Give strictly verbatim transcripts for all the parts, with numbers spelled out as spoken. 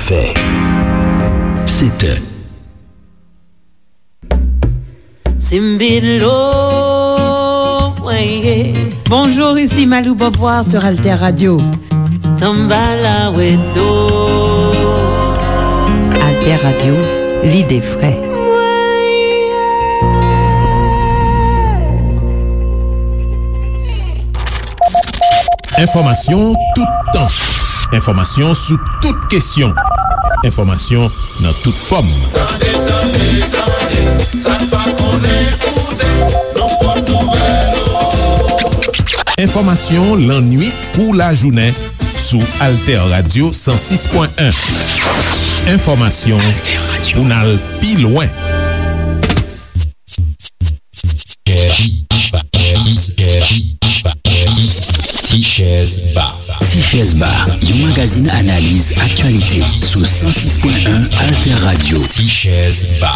Fè. Sèt è. Simbilo, weye. Bonjour, ici Malou Beauvoir sur Alter Radio. Tambala weto. Alter Radio, l'idée vraie. Enfòmasyon toutan. Enfòmasyon sou tout kesyon. Enfòmasyon nan tout fòm. Tande, tande, tande, sa n pa konnen koute, nan pòt nouvèl ou. Enfòmasyon lannuit kou lajounen sou Alter Radio san sis pwen en. Enfòmasyon pou n al pi lwen. Ti Chèz Ba. Ti Chèz Ba, yon magazin analiz aktyalite sou san sis pwen en Alter Radio. Ti Chèz Ba.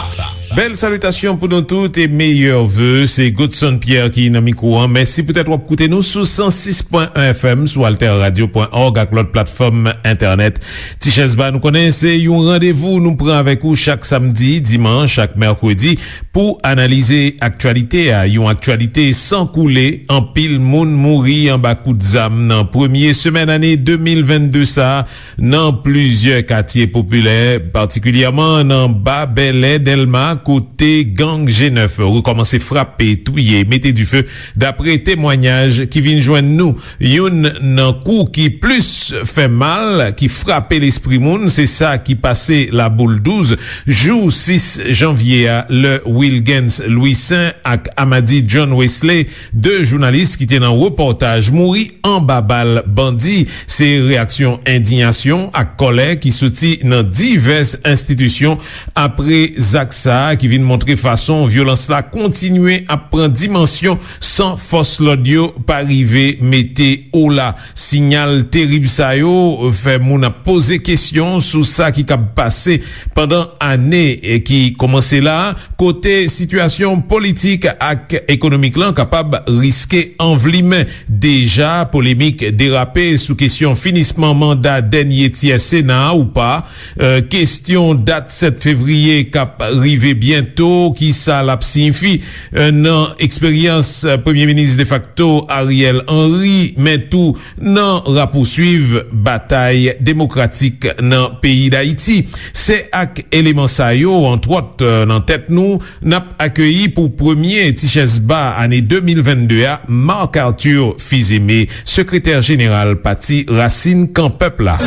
Bèl salitasyon pou nou tout e meyè ve. Se Godson Pierre ki nan mikwo an. Mèsi poutèt w ap koute nou sou san sis pwen en F M, sou alter radio pwen org ak lòt platfòm entènèt. Ti Chèz Ba, nou konnen se yon randevou nou pran avèk ou chak samdi, dimanch ak mèkredi pou analize aktyalite a. Yon aktyalite san koule, anpil moun mouri anba kout zam nan premye semèn ane de mil vennde sa a nan plizyè katye popilè, patikilyèman nan Ba Bèlè, Dèlma, kote gang G nèf rekòmanse frape, touye, mete dife, dapre temwanyaj ki vin jwenn nou. Youn nan kou ki plis fè mal, ki frape lespri moun, se sa ki pase Laboul douz, jou sis janvye a, lè Wilgens Louissaint ak Amady John Wesley, de jounalis ki te nan repòtaj, mouri anba bal bandi. Se reyaksyon endiyasyon ak kòlè ki soti nan divès enstitisyon apre zak sa a, ki vin montre fason vyolans la kontinye ap pran dimansyon san fòs lòd yo pa rive mete ola. Siyal terib sa yo fè moun ap poze kesyon sou sa ki kab pase pandan ane ki kòmanse la, kote sitiyasyon politik ak ekonomik lan kapab riske anvlimen. Deja, polemik derape sou kesyon finisman manda dènye tyè Sena a ou pa. Eh, kesyon dat sèt fevriye k ap rive byento, kisa l ap siyifi, eh, nan eksperyans, eh, Premye Minis defakto Ariel Henry, men tou nan rapouswiv batay demokratik nan peyi Dayiti? Se ak eleman sa yo, antwòt, eh, nan tèt nou, n ap akeyi pou premye Ti Chèz Ba ane de mil vennde a, Marc Arthur Fils-Aimé, sekretè jeneral Pati Rasin Kan Pèp la.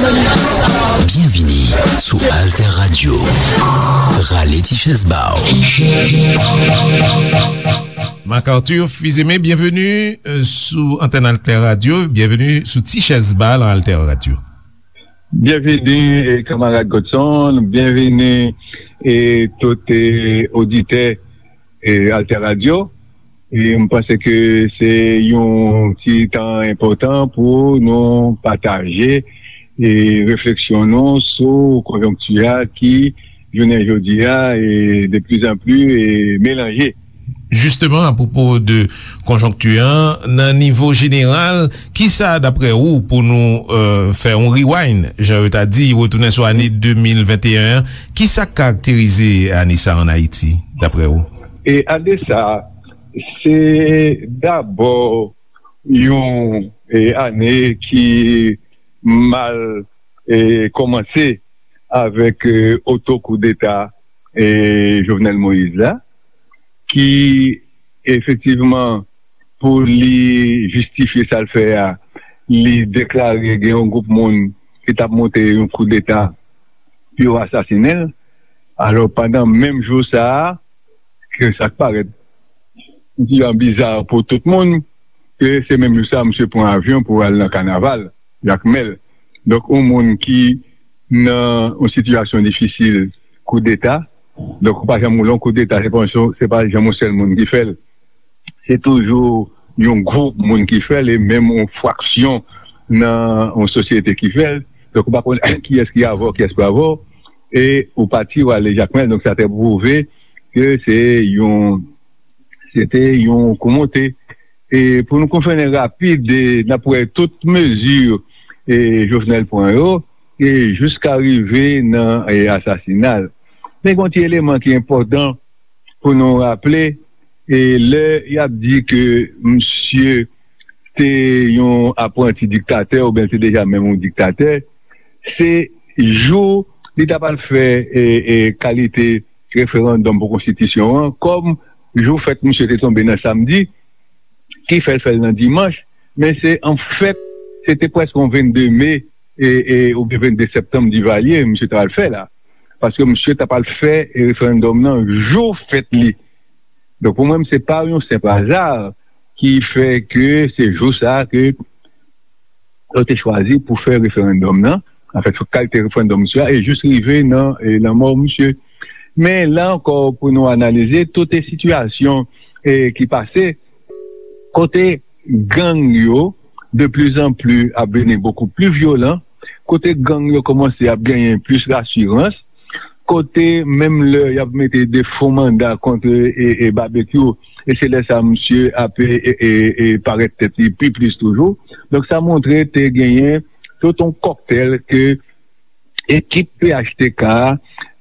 Byenvini sou Alter Radio. Rale ti chèz ba w. Marc Arthur Fils-Aimé, byenveni, euh, sou antèn Alter Radio. Byenveni sou Ti Chèz Ba nan Alter Radio. Byenveni, eh, kanmarad Godson. Byenveni, eh, tout, eh, oditè, eh, Alter Radio. E m panse ke se yon ti tan enpòtan pou nou pataje, eh, refleksyon nou sou konjonkti a ki, jounen jodi a, eh, de plus en plus, eh, melanje. Jisteman, apwopo de konjonkti an, nan nivo jeneral, kisa, daprè ou, pou nou, euh, fè yon rewind, jan yo ta di, retounen sou ane de mil venteyen an, kisa k karakterize ane sa a ann Ayiti, daprè ou? E ane sa a, se dabò yon, e, ane ki mal, e, kòmanse avèk, e, oto koudeta, e, Jovenel Moïse la, ki efektivman, pou li jistifye sa l fè a, li deklare gen yon gwoup moun ki t ap monte yon koudeta pou yo asasinen l. Alò, pandan menm jou sa a, ke sa k parèt yon ti jan biza pou tout moun, ke se menm jou sa a, misye pran avyon pou al nan kanaval Jakmèl. Donk, yon moun ki nan yon sitiyasyon difisil, koudeta, donk, ou pa janm wè yon koudeta, se pa yon, se pa janm yon sèl moun ki fè l. Se toujou yon gwoup moun ki fè l, e menm yon fraksyon nan yon sosyete ki fè l. Donk, ou pa konn kiyès ki avè w, kiyès pa avè w, e ou pati, w ale Jakmèl. Donk, sa te pwouve ke se yon, se te yon kou monte. E pou nou konfène rapid, e n ap wè tout mezi, e Jovenel pran yo, e jiska rive nan e, asasina l. Men gen yon ti eleman ki enpòtan pou nou raple, e lè y ap di ke misye te yon apranti diktatè oubyen l te deja menm yon diktatè, se jou li ta pral fè e, e, kalite referandòm pou konstitisyon an, kòm jou fèt misye te tonbe nan samdi, ki fè l fè l nan dimanch, men se anfèt, se te prèske yon vennde me e, e, oubyen vennde septanm Divalye, misye ta pral fè la. Paske misye ta pral fè referandòm nan jou fèt li. Donk, pou mwen, se pa yon senp aza ki fè ke se jou sa a ke yo te chwazi pou fè referandòm nan, anfèt, kalite referandòm misye a, e jis rive nan e, lanmò misye. Men la ankò, pou nou analize tout e sitiyasyon e, ki pase, kote gang yo de plus en plus ap vini beaucoup plus vyolan, kote gang yo kòmanse ap genyen plis rasirans, kote menm lè y ap mete de fo manda kont e, e Babekyou, e se lè sa misye ap e, e, e, e parèt tèt li pi plis toujou. Donk, sa montre te genyen tout yon kòktèl ke ekip P H T K a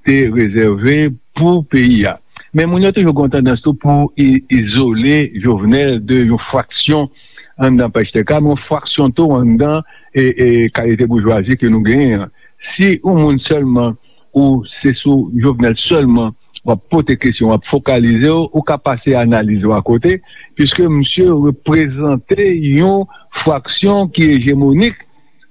te rezève pou peyi a. Men moun yo toujou gen yon tandans tou pou i- izole Jovenel de yon fraksyon anndan P H T K, men yon fraksyon tou anndan e, e kalite boujwazi ke nou genyen an. Si yon moun sèlman, ou se sou Jovenel sèlman w ap pote kesyon, w ap fokalize w, ou ka pase analiz ou akote, piske misye reprezante yon fraksyon ki ejemonik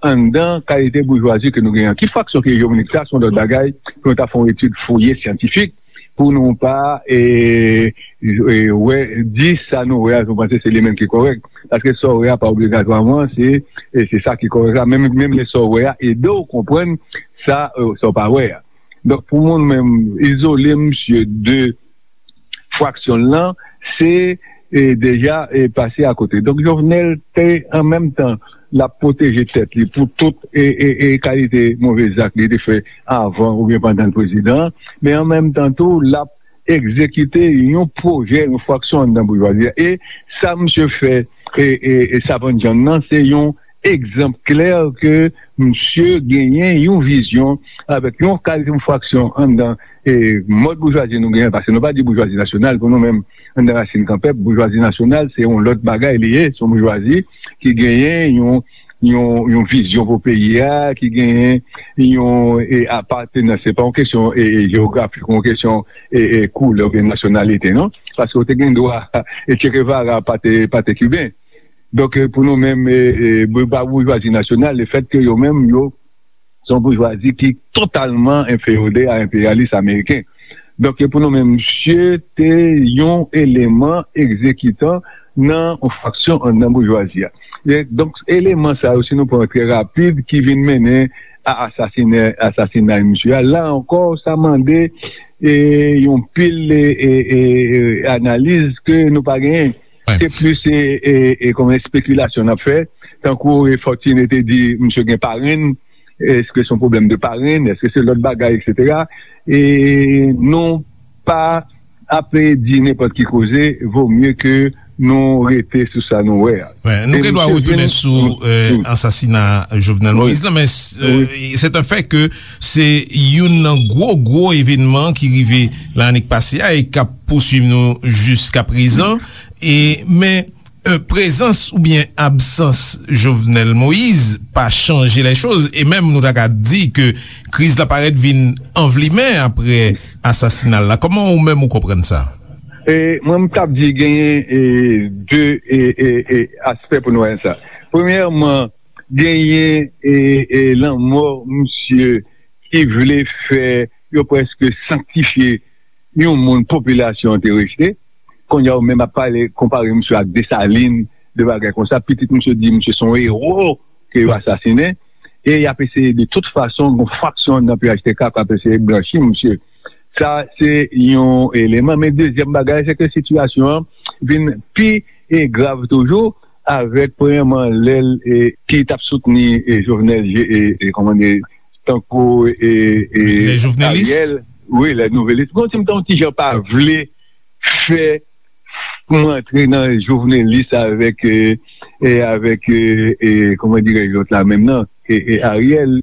anndan kalite boujwazi ke nou genyen an. Ki fraksyon ki ejemonik, sa se yon lòt bagay, pou nou ta fè yon etid fouye syantifik, pou nou pa e, e, wè, di sa nou wè a, nou panse se li menm ki kòrèk. Paske sa w wè a pa obligatwaman se, e se sa ki kòrèk la. Menm, menm lè sa w wè a ede w konprann sa, e, sa w pa wè a. Donk, pou mwen menm, izole misye de fraksyon l lan, se e, deja e, pase akote. Donk, Jovenel te, an menm tan, l ap pwoteje tèt li pou tout e, e, e kalite move zak li te fè avan oubyen pandan l prezidan, men an menm tan tou, l ap egzekite yon pwojè, yon fraksyon anndan boujwazi a. E sa misye fè e, e, e Savann John nan, se yon egzanp klè ke misye genyen yon vizyon avèk yon kalite yon fraksyon anndan e mòd boujwazi nou genyen, paske nou pa di boujwazi nasyonal pou nou menm, anndan Rasin Kanpèp, boujwazi nasyonal, se yon lòt bagay li ye, se yon boujwazi ki genyen yon, yon, yon vizyon pou peyi a, ki genyen yon e, apatenans, se pa yon kesyon e, e, jewografik, yon kesyon e, e, koulè oubyen nasyonalite, non? Paske w te gen dwa, e Che Guevara pa te, pa te kiben. Donk, e, pou nou menm, e, e, bou- pa boujwazi nasyonal, lefètke yo menm, yo, se yon boujwazi ki totalman enfeyode a enperyalis ameriken. Donk, e, pou nou menm, misye te yon eleman egzekitan nan yon fraksyon anndan boujwazi a. E, donk, eleman sa yo, si nou pran trè rapid, ki vin mennen a asasine, asasinay misye a, la ankò, sa mande e, yon pil e, e, e, e, analiz ke nou pa genyen. Se plis e, e, e, kòm espekilasyon n ap fè. Tankou e, Fortuné te di, misye gen parenn, èske se yon pwoblèm de parenn, èske se lòt bagay, etsetera. E nou pa ap di nenpòt ki koze, vo mye ke nou rete sou sa nou wè a. Wè, nou gen dwa retounen sou e, ansasina Jovenel Moïse la, men e, se te fè ke se youn nan gwo, gwo evènman ki rive lannik pase a e k ap pouswiv nou jiska prezan. E, men e, prezans oubyen absans Jovenel Moïse pa chanje lè choz, e menm nou ta ka di ke kriz la parèt vin anvlimen apre asasina l la. Kòman ou menm ou konprann sa? E, mwen, m t ap di genyen e, de e, e, e, aspè pou nou wè sa. Premyèman, genyen e, e, lanmò misye ki vle fè yo prèske sanktifye yon moun popilasyon an te rejte. Kounye a, ou menm ap pale, konpare misye ak Desalin, de bagay konsa. Pitit misye di misye se yon ewo ke yo asasinen. E y ap eseye de tout fason, yon fraksyon nan P H T K k ap eseye blanchi misye. Sa, se yon eleman. Men dezyèm bagay, se ke sitiyasyon an vin pi e grav toujou avèk, premyèman, lè l e, ki t ap soutni e, Jovenel, e, e, kòman di, tankou e, e, Ariel. Wi, lè nouvelis. Bon, si m ta yon ti jan pa vle fè pou m antre nan jovenelis avèk e, e avèk e, e kòman dirèj lòt la menm nan e, e Ariel.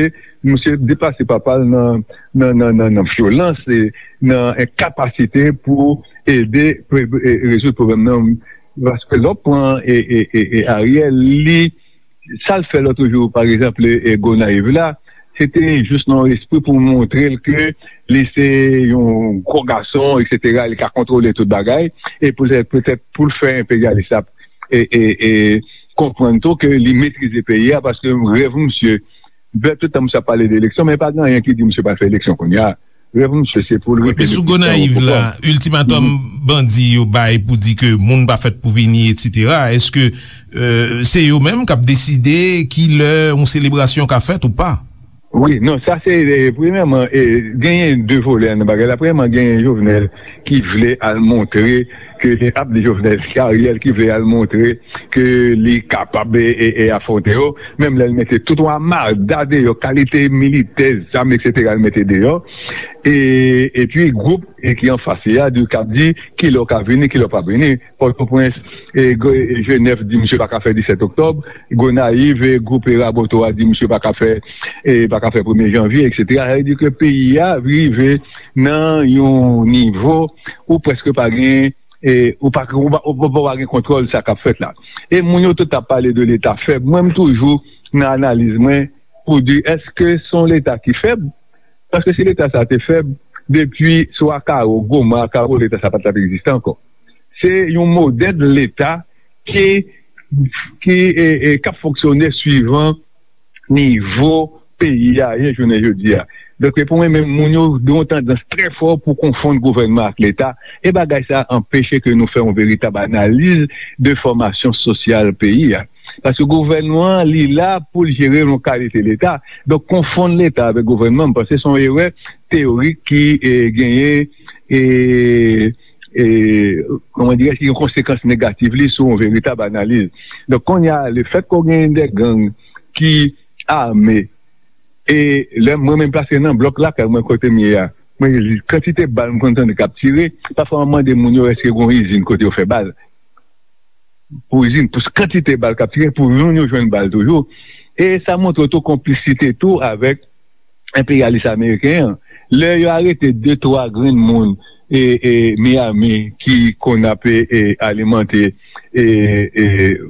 misye, misye deplase papa l nan, nan, nan, nan, nan vyolans, e nan enkapasite pou ede pre- e rezoud pwoblèm nan. Paske lè w pran e, e, e, e Ariel, li, sa l fè lòt jou, pa egzanp, e, e Gonayiv la, se te jis nan espri pou montre l ke li se yon gwo gason, etsetera, li ka kontwole tout bagay, e poutèt, poutèt pou l fè enperyalis la e, e, e konprann tou ke li metrize peyi a, paske rèv misye, bèl tout tan misye ap pale de eleksyon, men pa gen anyen ki di misye pral fè eleksyon kounye a. Rèv misye, se pou l rete depi tan o pouvwa. Epi sou Gonayiv la, iltimatòm bandi yo bay pou di ke moun pa fèt pou vini, etsetera, èske, euh, se yo menm k ap deside ki lè yon selebrasyon ka fèt ou pa? Wi, non, sa se, e, premyèman, e, genyen de volè nan bagay la. Premyèman, genyen Jovenel ki vle al montre ke, ap di Jovenel, se Ariel ki vle al montre ke li kapab e, e, e afwonte yo. Menm lè l mete tout yon amada deyò, kalite militè, zam, etsetera, l mete deyò. E, epi gwoup e ki anfas li a, di, k ap di kilè w ka vini, kilè w p ap vini. Pòtoprens, e, Jenèf di misye pa ka fè disèt oktòb, Gonayiv, e, gwoup e Raboto a di misye pa ka fè, e, pa ka fè premye janvye, etsetera. Sa vle di ke peyi a rive nan yon nivo ou prèske pa gen, e, ou pa, ou pa, ou pa, ou pa gen kontwòl sa k ap fèt la. E moun yo tout ap pale de Leta fèb. Mwen, m toujou nan analiz mwen pou di, èske se yon Leta ki fèb? Paske si Leta sa te fèb, depi sou Akaro, Goma, Akaro, Leta sa pa t ap egziste ankò. Se yon modèl Leta ki, ki, e, e, k ap fonksyone swivan nivo peyi a ye jounen jodi a. Donk, pou mwen menm, moun yo gen yon tandans trè fò pou konfonn gouvènman ak Leta, e bagay sa a anpeche ke nou fè yon veritab analiz de fòmasyon sosyal peyi a. Paske gouvènman an, li la pou l jere yon kalite Leta. Donk, konfonn Leta avèk gouvènman, m panse se yon erè teyorik ki, e, genyen, e, e, kòman dirè, ki gen konsekans negatif li sou yon veritab analiz. Donk, kounye a, lefèt ke w genyen de gang ki ame, e lè mwen menm pase nan blòk lakay mwen kote m ye a, mwen, kantite bal m konn tande k ap tire, pafwa mwen mande moun yo èske gen yon izin kote yo fè bal. Pou izin, pou kantite bal k ap tire, pou moun yo jwenn bal toujou. E sa montre tou konplisite tou avèk enperyalis ameriken an. Lè yo arete de, twa grenn moun e, e Miami ki konn ap, e, e, alimante, e, e,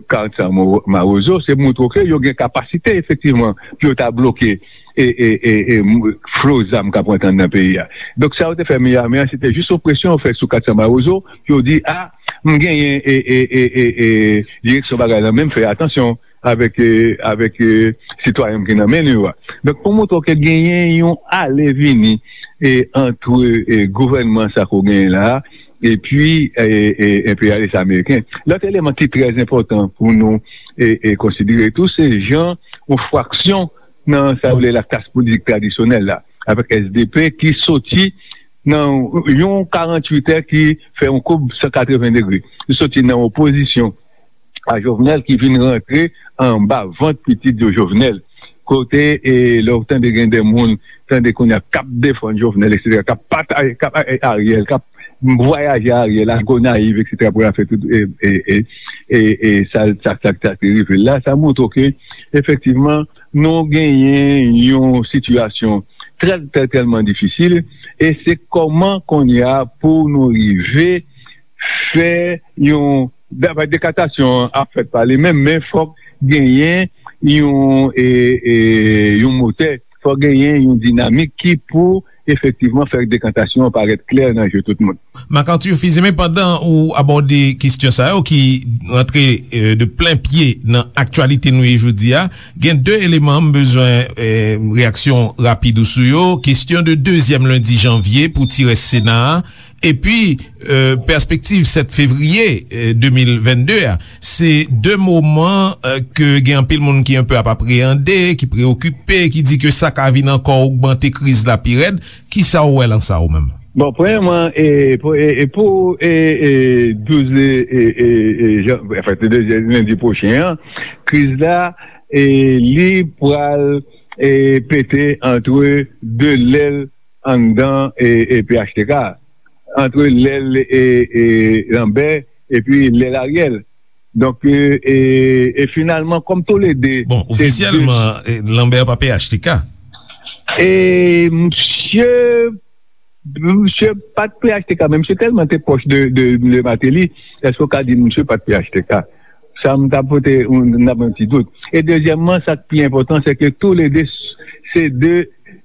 Carson Mo- Mawozo, se montre ke yo gen kapasite efektivman pou yo ta bloke e, e, e, e, m- flo zam k ap rantre anndan peyi a. Donk, sa yo te fè Miami an, se te jis yon presyon yo fè sou Carson Mawozo, pou yo di, a, m genyen e, e, e, e, e, direksyon bagay la, men m fè atansyon avèk, e, avèk, e, sitwayen m ki nan men nou yo a. Donk, pou montre w ke genyen yon ale vini e, antre e, gouvènman sa ke w genyen la a, epi e, e, enperyalis ameriken. Lòt eleman ki trè enpòtan pou nou e, e, konsidere tou, se jan yon fraksyon nan sa yo rele la klas politik tradisyonèl la, avèk S D P ki soti nan yon karanntuitè ki fè yon koub san katreven degre. Li soti nan opozisyon a Jovenel ki vin rantre anba vant pitit yo Jovenel. Kote, e, lè w tande gen de moun, tande kounye a k ap defann Jovenel, etsetera, k ap pataje, k ap, e, Ariel, k ap vwayaje Ariel, al Gonayiv, etsetera, pou l al fè tout, e, e, e, e, e, sa, sa, sa, sa ki rive l la, sa montre ke, efektivman, nou genyen yon sitiyasyon trè, trè, tèlman difisil, e se kòman kounye a pou nou rive fè yon, dekatasyon an ap fèt pa li menm, men fòk genyen yon, e, e, yon motè, fò genyen yon dinamik ki pou efektivman fè dekantasyon an parèt klè nan je tout moun. Marc Arthur Fils-Aimé, pandan ou abòde kesyon sa yo ki rantre, eh, de plen pye nan aktyalite nou ye jodi a, gen de eleman m bezwen, eh, reyaksyon rapid ou sou yo. Kesyon de dezyèm lendi janvye pou ti rès Sena a, epi, eh, pèspektiv sèt fevriye, eh, de mil vennde a. Se de moman, eh, ke gen anpil moun ki enpe ap apreyande, ki preyokipe, ki di ke sa ka vin ankò ogmante kriz la pi rèd. Kisa w wè lan sa ou menm? Bon, premyèman, e, pou, e, e pou, e, e, douz, e, e, e, e, jan, anfen, se de lendi pwochen an, kriz la, e, li pral, e, pete antre de lèl anndan, e, e, P H T K, antre lèl, e, e, Lambert epi lèl Ariel. Donk, e, e, e finalman, kòm toulede, bon, se de ofisyèlman, e, Lambert pa P H T K. E misye, misye pa t P H T K, men misye tèlman te pwòch de, de, de Martelly, èske w ka di misye pa t P H T K? Sa m ta pote, m, n ap yon ti dout. E dezyèmman, sa k pi enpòtan, se ke toulede s-, se de,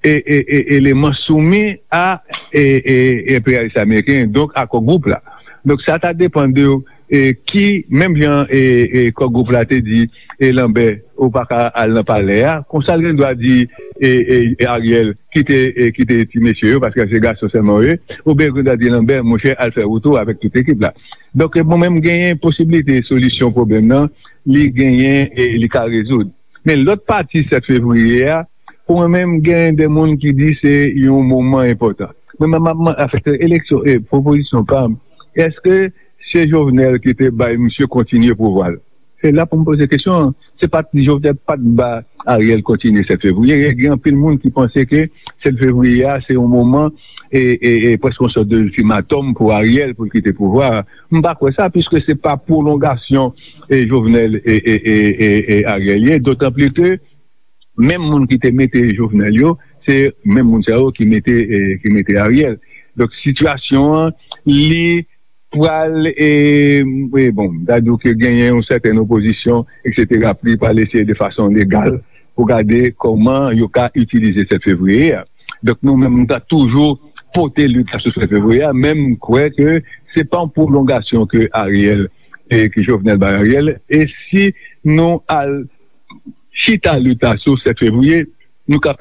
e, e, e, eleman soumi a, e, e, enperyalis ameriken, donk a Kò Gwoup la. Donk, sa ta depann de, e, ki, menm jan, e, e, Kò Gwoup la te di, e, Lambert, ou pa ka al nan palè a, konsa l gen dwa di, e, e, e, Ariel, kite, e, kite ti mesye yo, paske se gason sèlman yo ye, oubyen l gen dwa di Lambert, monchè, al fè wout ou avèk tout ekip la. Donk, mwen menm, genyen posiblite solisyon pwoblèm nan, li genyen e li ka rezoud. Men lòt pati sèt fevriye a, pou mwen menm, genyen de moun ki di se yon moman enpòtan. Mwen menm, m ap, m ap, afèt eleksyon, e pwopozisyon pa m, èske se Jovenel ki te bay misye kontinye pouvwa l? Se la pou m poze kesyon an. Se pa t Jovenel pa t ba Ariel kontinye sèt fevriye. Gen anpil moun ki panse ke sèt fevriye a, se yon moman, e, e, e prèske yon sòt de iltimatòm pou Ariel pou l kite pouvwa a. M pa kwè sa, piske se pa pwolongasyon, e, Jovenel e, e, e, e, e Ariel ye. Dotanplis ke menm moun ki te mete Jovenel yo, se menm moun sa yo ki mete, e, ki mete Ariel. Donk, sitiyasyon an, li pral, e, e, bon, m ta di w ke genyen yon sètèn opozisyon, etsetera, pou li pral eseye de fason legal pou gade kòman yo ka itilize sèt fevriye a. Donk, nou menm, nou ta toujou pote lit la sou sèt fevriye a, men m kwè ke se pa yon pwolongasyon ke Ariel, e ke Jovenel bay Ariel, e si nou al chita lit la sou sèt fevriye, nou ka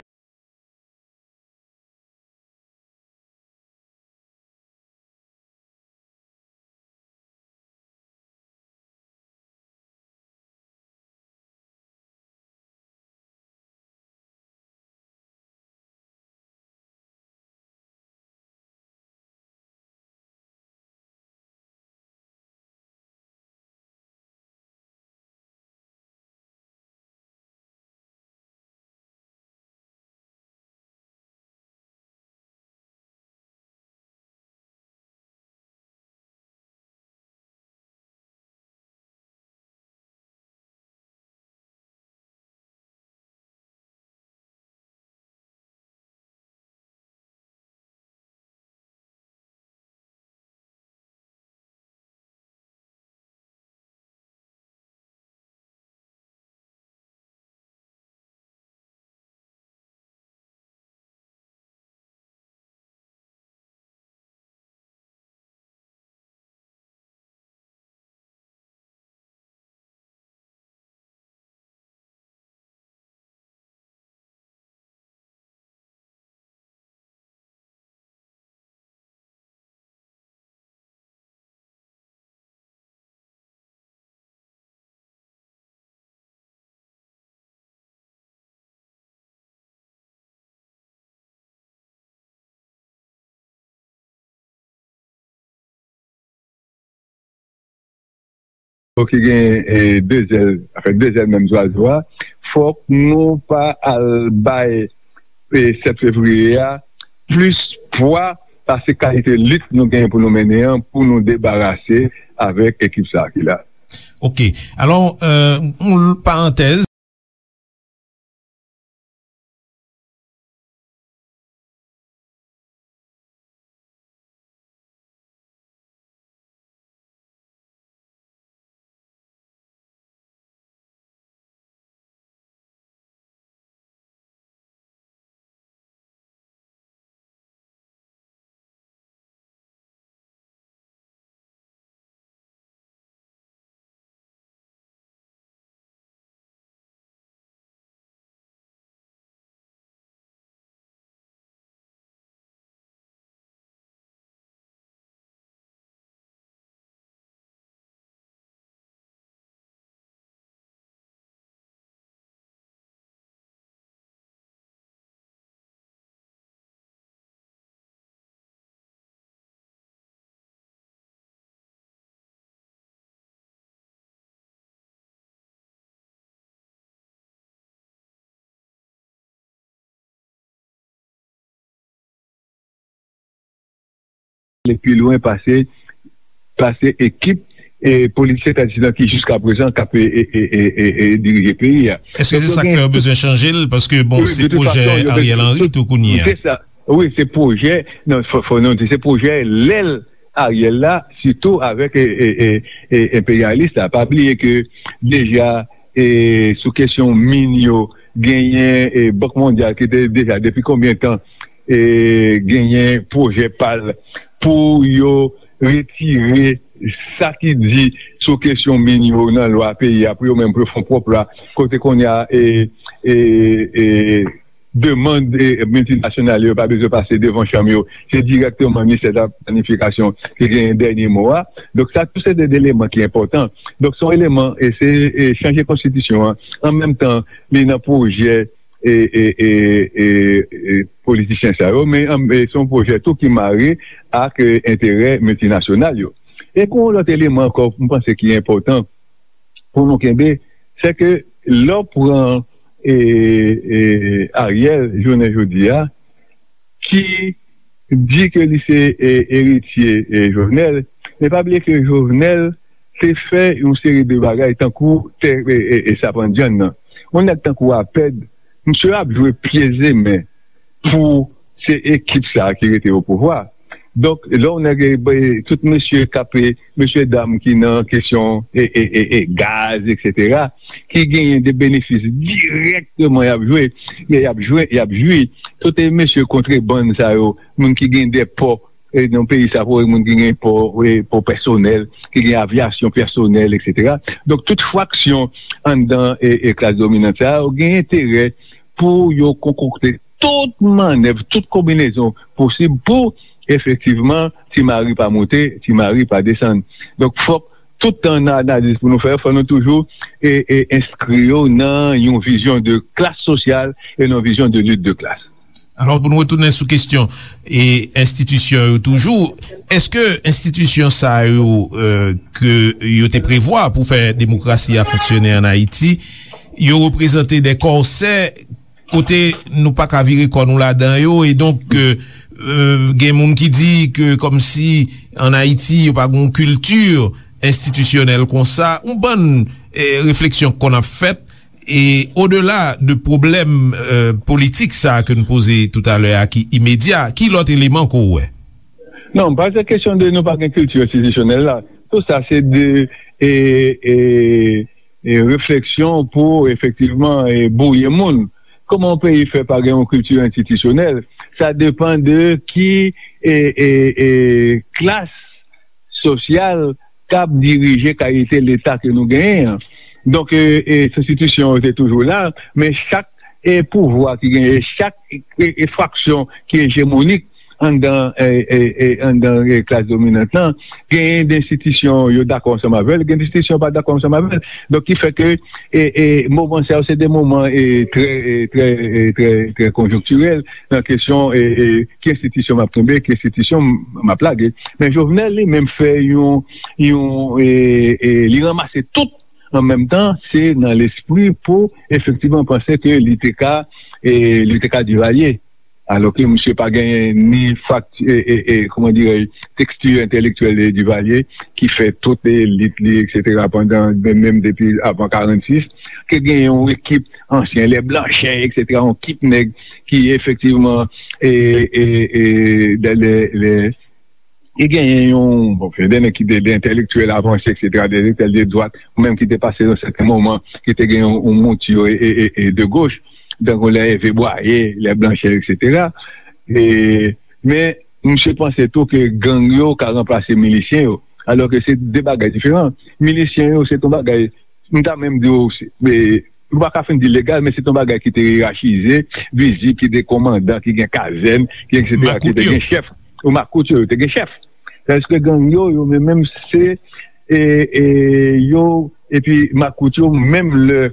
Ki gen, e, de zèl, anfen, de zèl menm zwazo a, fòk nou pa al bay, e, sèt fevriye a plis pwa pase kalite lit nou genyen pou nou mennen an, pou nou debarase avèk ekip sa a ki la. Ok. Alò, e, yon parantèz. ale pi lwen pase pase ekip e politisyen tradisyonèl ki jiskaprezan k ap e, e, e, e, e, e dirije peyi a. Èske se sa k fè yo bezwen chanje l? Paske, bon, se pwojè Ariel Henry tou kounye a. Se sa. Wi, se pwojè, non, fò, fò nou di, se pwojè lè l Ariel la, sitou avèk e, e, e, e, enperyalis la. Pa bliye ke deja e, sou kesyon min yo, genyen e, Bank Mondyal ki te deja depi konbyen tan e, genyen pwojè pa l pou yo retire sa ki di sou kesyon min yo nan lwa peyi a, pou yo menm pou yo fè yon pwòp lwa, kote kounye a e, e, e, demann e, miltinasyonal yo pa bezwen pase devan chanm yo. Se dirèkteman ministè de la planifikasyon ki genyen dènye mo a. Donk, sa tou se de eleman ki enpòtan. Donk, se yon eleman, e se e, chanje konstitisyon an. An menm tan, li nan pwojè e, e, e, e, e, politisyen sa yo, men an- e, se yon pwojè tou ki mare ak e, enterè miltinasyonal yo. E gen yon lòt eleman ankò, m panse ki enpòtan pou nou kenbe, se ke lè w pran e, e, Ariel jounen jodi a, ki di ke li se e, eritye e, Jovenel, men pa bliye ke Jovenel te fè yon seri de bagay tankou tè e, e, e sapandyann nan. Yon nèg tankou Apèd, misye ap jwe pye zemen pou se ekip sa a ki rete o pouvwa. Donk, lè yon nèg e, e, tout mesye k ap e, mesye dam ki nan kesyon e, e, e, e gaz, etsetera, ki genyen de benefis dirèkteman y ap jwe, y ap jwe, y ap jwi. Tout e mesye kontrebann sa yo, moun ki gen de pò e, nan peyi sa, pou moun ki gen pò, e, pò pèsonèl, ki gen avyasyon pèsonèl, etsetera. Donk, tout fraksyon anndan e, e klas dominant sa a, yo gen enterè pou yo konkokte tout mannèv, tout konbinezon posib pou efektivman Ti Mari pa moute, Ti Mari pa desann. Donk, fòk tout tan nan analiz pou nou fè, fò nou toujou e, e enskri yo nan yon vizyon de klas sosyal e nan vizyon de lit de klas. Alò, pou nou retounen sou kesyon e enstitisyon yo toujou, èske enstitisyon sa yo e, ke yo te prevwa pou fè demokrasi a fonksyone ann Ayiti, yo reprezante de kòsè kote nou pa ka vire kò nou ladan yo, e donk e, e, gen moun ki di ke kòmsi ann Ayiti yo pa gen yon kilti enstitisyonèl konsa, yon bann e, refleksyon k konn ap fèt, e odela de pwoblèm e, politik sa a ke n poze toutalè a ki imedya, ki lòt eleman ke w wè? Non, pa se kesyon de nou pa gen kilti enstitisyonèl la. Tou sa se de e, e, e refleksyon pou efektivman e, bouye moun. Kòman yon peyi fè pa gen yon kilti enstitisyonèl? Sa depann de ki e, e, e, klas sosyal k ap dirije kalite Leta ke nou genyen an. Donk, e, e, enstitisyon yo te toujou la, men chak e, pouvwa ki genyen, chak e, e, fraksyon ki ejemonik anndan e, e, e, anndan e, klas dominant lan, genyen de enstitisyon yo dakò ansanm avè l, gen de enstitisyon yo pa dakò ansanm avè l. Donk, ki fè ke e, e, moman sa yo se de moman e, trè, e, trè, e, trè, trè konjonktirèl nan kesyon e, e, ki enstitisyon m ap kenbe, ki enstitisyon m ap lage. Men Jovenel li menm fè yon, yon e, e, li ranmase tout an menm tan, se nan lespri pou efektivman panse ke li te ka e, li te ka Divalye. Alò ke misye pa genyen ni fakti, e, e, e, kòman dirèj, teksti entèlektyèl de Divalye ki fè tout elit li, etsetera, pandan, menm, menm depi avan karannsis, ke genyen yon ekip ansyen, lè Blanchè, etsetera, yon ekip nèg ki efektivman e, e, e, de, le, le, e genyen yon, bon, gen de nèg ki te de entèlektyèl avanse, etsetera, de entèlektyèl de dwat, ou menm ki te pase nan sèten moman, ki te gen yon, yon mouti e, e, e, e de goch, tankou lè Ève Bwaye, lè Blanchè, etsetera. E, men, misye panse tou ke gang yo ka ranplase milisyen yo, alò ke se de bagay diferan. Milisyen yo, se yon bagay, m ta menm di w, se, e, nou pa ka fin di legal, men se yon bagay ki te yerachize, vizib, ki te komandan, ki gen kazèn, ki etsetera, ki te gen chèf. Ou makout yo, yo te gen chèf. Tandis ke gang yo, yo menm, menm se e, e, yo, epi makout yo, menm lè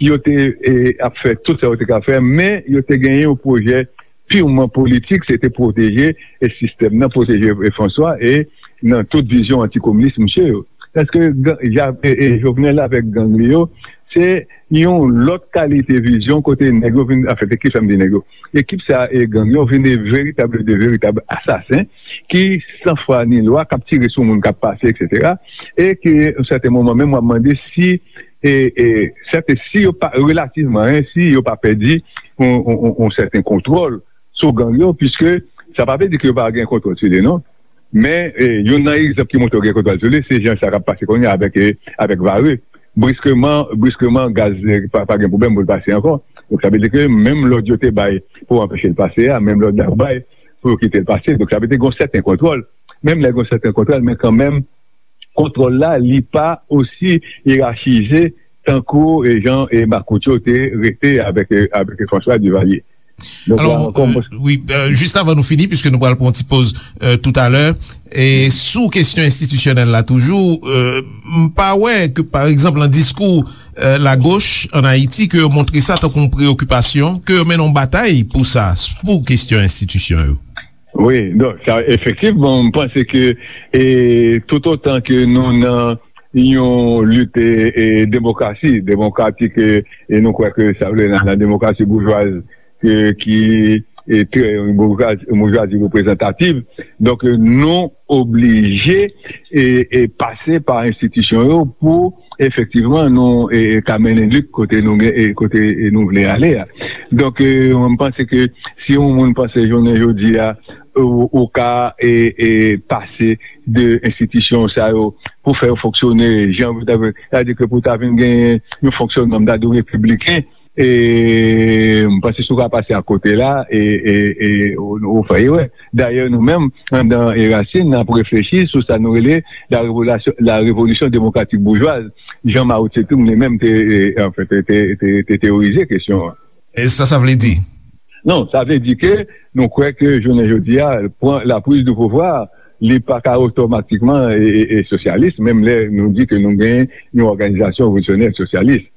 yo te e, ap fè tout sa yo te ka fè, men yo te genyen yon pwojè pirman politik, se te pwoteje e sistèm nan, pwoteje e Franswa e nan tout vizyon antikominis misye yo. Èske e, e, Jovenel avèk gang li yo, se yon lòt kalite vizyon kote nèg yo vin, anfen, se ki fè m di nèg yo. Ekip sa e gang yo vin de veritab, de veritab asasen ki san fwa ni lwa, k ap tire sou moun k ap pase, etsetera. E ke, yon sèten moman menm, w ap mande si, e, e, sèten, si yo pa, relativman, en, si yo pa pèdi yon, yon, yon, yon sèten kontwòl sou gang yo, piske sa pa vle di ke yo pa gen kontwòl sou li, non. Men, e, youn nan egzanp ki montre yo gen kontwòl sou li, se jan sa k ap pase kounye a avèk, e, avèk Vare. Briskeman, briskeman, gaz, e, pa, pa gen pwoblèm pou l pase ankò. Donk, sa vle di ke menm lòd yo te bay pou anpeche l pase a, menm lòd la yo bay pou yo kite l pase. Donk, sa vle di gen yon sèten kontwòl. Menm lè gen yon sèten kontwòl, men kanmenm, kontwòl la, li pa osi yerachize tankou, e, jan, e, makout yo te rete avèk, e, avèk François Duvalier. Donk, la Alò, ankò, euh, mwen wi, euh, jis avan nou fini, piske nou pral pran yon ti poz, euh, toutalè, e sou kesyon enstitisyonèl la toujou, euh, m pa wè ke, pa egzanp, nan diskou, euh, lagoch ann Ayiti, ke yo montre sa tankou yon preyokipasyon, ke yo mennen yon batay pou sa, pou kesyon enstitisyon yo. Wi, donk, sa, efektivman, m panse ke, e, toutotan ke nou nan yon lit, e, e, demokrasi, demokratik, e, e nou kwè ke sa vle nan, nan demokrasi boujwaz, e, ki, e, trè, yon boujwazi, yon boujwazi reprezantativ. Donk, e, nou oblije, e, e, pase pa enstitisyon yo pou efektivman nou, e, e, ka mennen lit kote nou gen, e, kote, e, nou vle ale a. Donk, e, mwen, m panse ke si yon moun panse jounen jodi a, ou, ou ka, e, e, pase de enstitisyon sa yo pou fè yo fonksyone jan pou ta, sa vle di ke pou ta vin gen yon fonksyonman, m ta di w, repibliken, e m panse si w ka pase akote la, e, e, e ou, ou fè erè. Dayè, nou menm, anndan Erasin, n ap reflechi sou sa nou rele la revolasyon, la révolution démocratique bourgeoise. Jan Mao Tse-tung li menm te, e, anfen, te, te, te, te teyorize kesyon an. E sa, sa vle di? Non, sa vle di ke nou kwè ke jounen jodi a, pran la prise de pouvoir, li pa ka otomatikman e, e, e sosyalis, menm lè nou di ke nou gen yon òganizasyon revolisyonè sosyalis.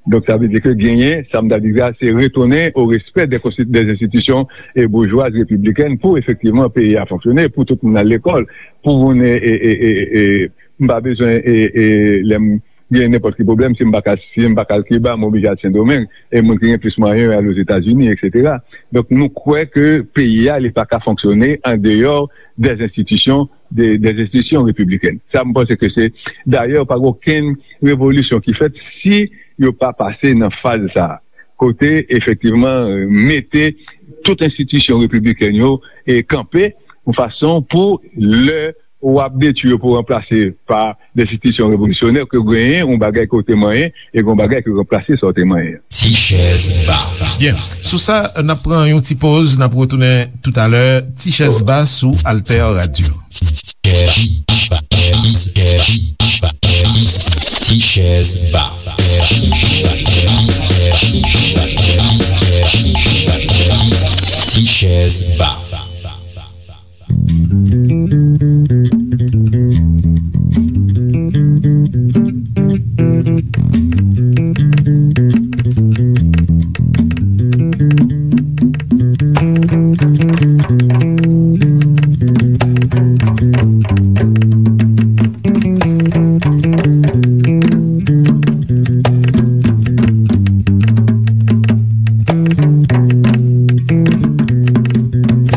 Donk, sa vle di ke genyen, sa m ta di a, se retounen o respè de, de enstitisyon e boujwaz repiblikèn pou efektivman peyi a fonksyone, pou tout moun al lekòl, pou moun, e, e, e, e, e, m pa bezwen, e, e, lè m gen nenpòt ki pwoblèm, si m pa ka, si m pa ka al Kiba, m oblije al Sendomeng, e moun ki gen plis mwayen yo al Ozetazini, etsetera. Donk, nou kwè ke peyi a, li pa ka fonksyone andeyò de enstitisyon, de, de enstitisyon repiblikèn. Sa, m panse ke se, dayè, pa gen okenn revolisyon ki fèt si yo pa pase nan faz sa a. Kote, efektivman, mete tout enstitisyon repiblikèn yo e kanpe yon fason pou lè w ap detwi yo pou ranplase pa de enstitisyon revolisyonè, ke genyen yon bagay ke w te manyen e gen yon bagay ki ranplase sa w te manyen an. Ti chèz ba. Byen, sou sa, n ap pran yon ti poz, n ap retounen toutalè. Ti chèz ba sou Alter Radio. Ti chèz ba. Ti chèz ba.